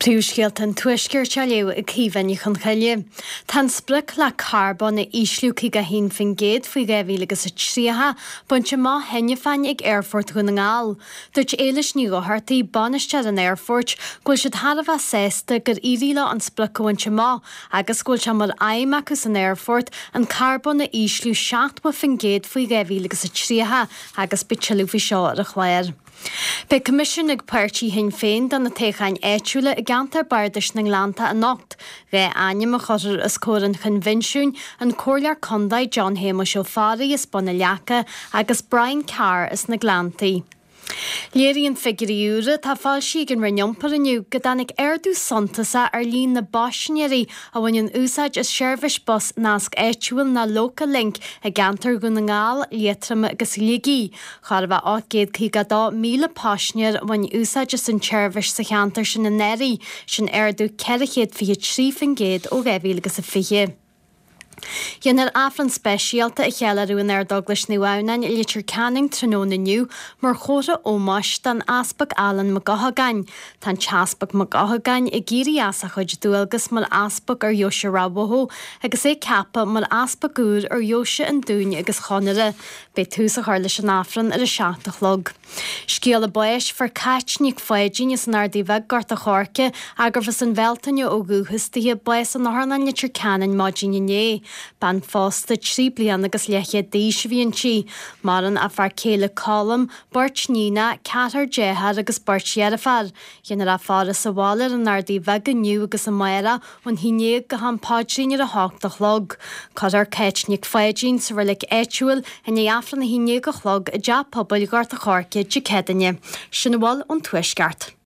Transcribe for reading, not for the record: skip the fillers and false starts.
Príomhscéalta an Tuaiscirt á léamh ag Caoimhe Ní Chonchoille. Tá an sprioc le carbón a ísliú 51% faoi 2030 bainte amach cheana féin ag Aerfort Dhún na nGall. Dúirt Éilis Ní Dhochartaigh, bainisteoir an aerfoirt, go bhfuil siad thar a bheith sásta gur éirigh leo an sprioc a bhaint amach agus go bhfuil sé mar aidhm acu san aerfort an carbón a ísliú 70% faoi 2030 agus beidh tuilleadh faoi seo ar an chlár. Beidh coimisiún ag páirtí Shinn Féin do na toghcháin áitiúla i gceantar Bardais na nGleannta anocht. 2 ainm a chuirfear os comhair an choinbhinsiúin, an Comhairleoir Contae John Shéamuis Ó Fearraigh as Bun na Leaca agus Brian Carr as na Gleanntaí. Léiríonn figiúirí úra atá foilsithe ag an Roinn Iompair inniu go dtáinig ardú suntasach ar líon na bpaisinéirí a bhaineann úsáid as seirbhís bus Nasc Áitiúil nó Local Link i gceantar Dhún na nGall, Liatroma agus Shligigh. Chóir a bheith 852,000 paisinéir a bhain úsáid as an tseirbhís sa cheantar sin anuraidh, sin ardú 423% ó 2020. Déanfar Aifreann speisialta a cheiliúradh in Ard-Eaglais Naomh Adhamhnáin i Leitir Ceanainn tráthnóna inniu mar chomhartha ómóis don Easpag Alan Mac Eochagáin. Tá an tEaspag Mac Eochagáin ag éirí as a chuid dualgas mar Easpag ar Dheoise Ráth Bhoth agus é ceaptha mar Easpag úr ar Dheoise an Dúin agus Chonaire. Beidh tús á chur leis an Aifreann ar a 7 a chlog. Scéala báis, Fuair Cáit Nic Pháidín as an Ardaidh Bheag, Gort a' Choirce, gurbh as an Bhealtaine ó dhúchas dithe, bás in Otharlann Leitir Ceanainn maidin inné. Bean phósta, 3 bliana agus leathchéad d'aois a bhí inti. Maireann a fear céile Colm, beirt níonacha, ceathrar dearthár agus beirt dheirféar. Déanfar a faire sa bhaile ar an Ardaidh Bheag inniu agus amárach ón 11 go ham paidrín ar a hocht a chlog. Cuirfear Cáit Nic Pháidín sa reilig áitiúil i ndiaidh Aifreann a 11 a chlog i dTeach Pobail Ghort a' Choirce Dé Céadaoine. Sin a bhfuil ón Tuaisceart.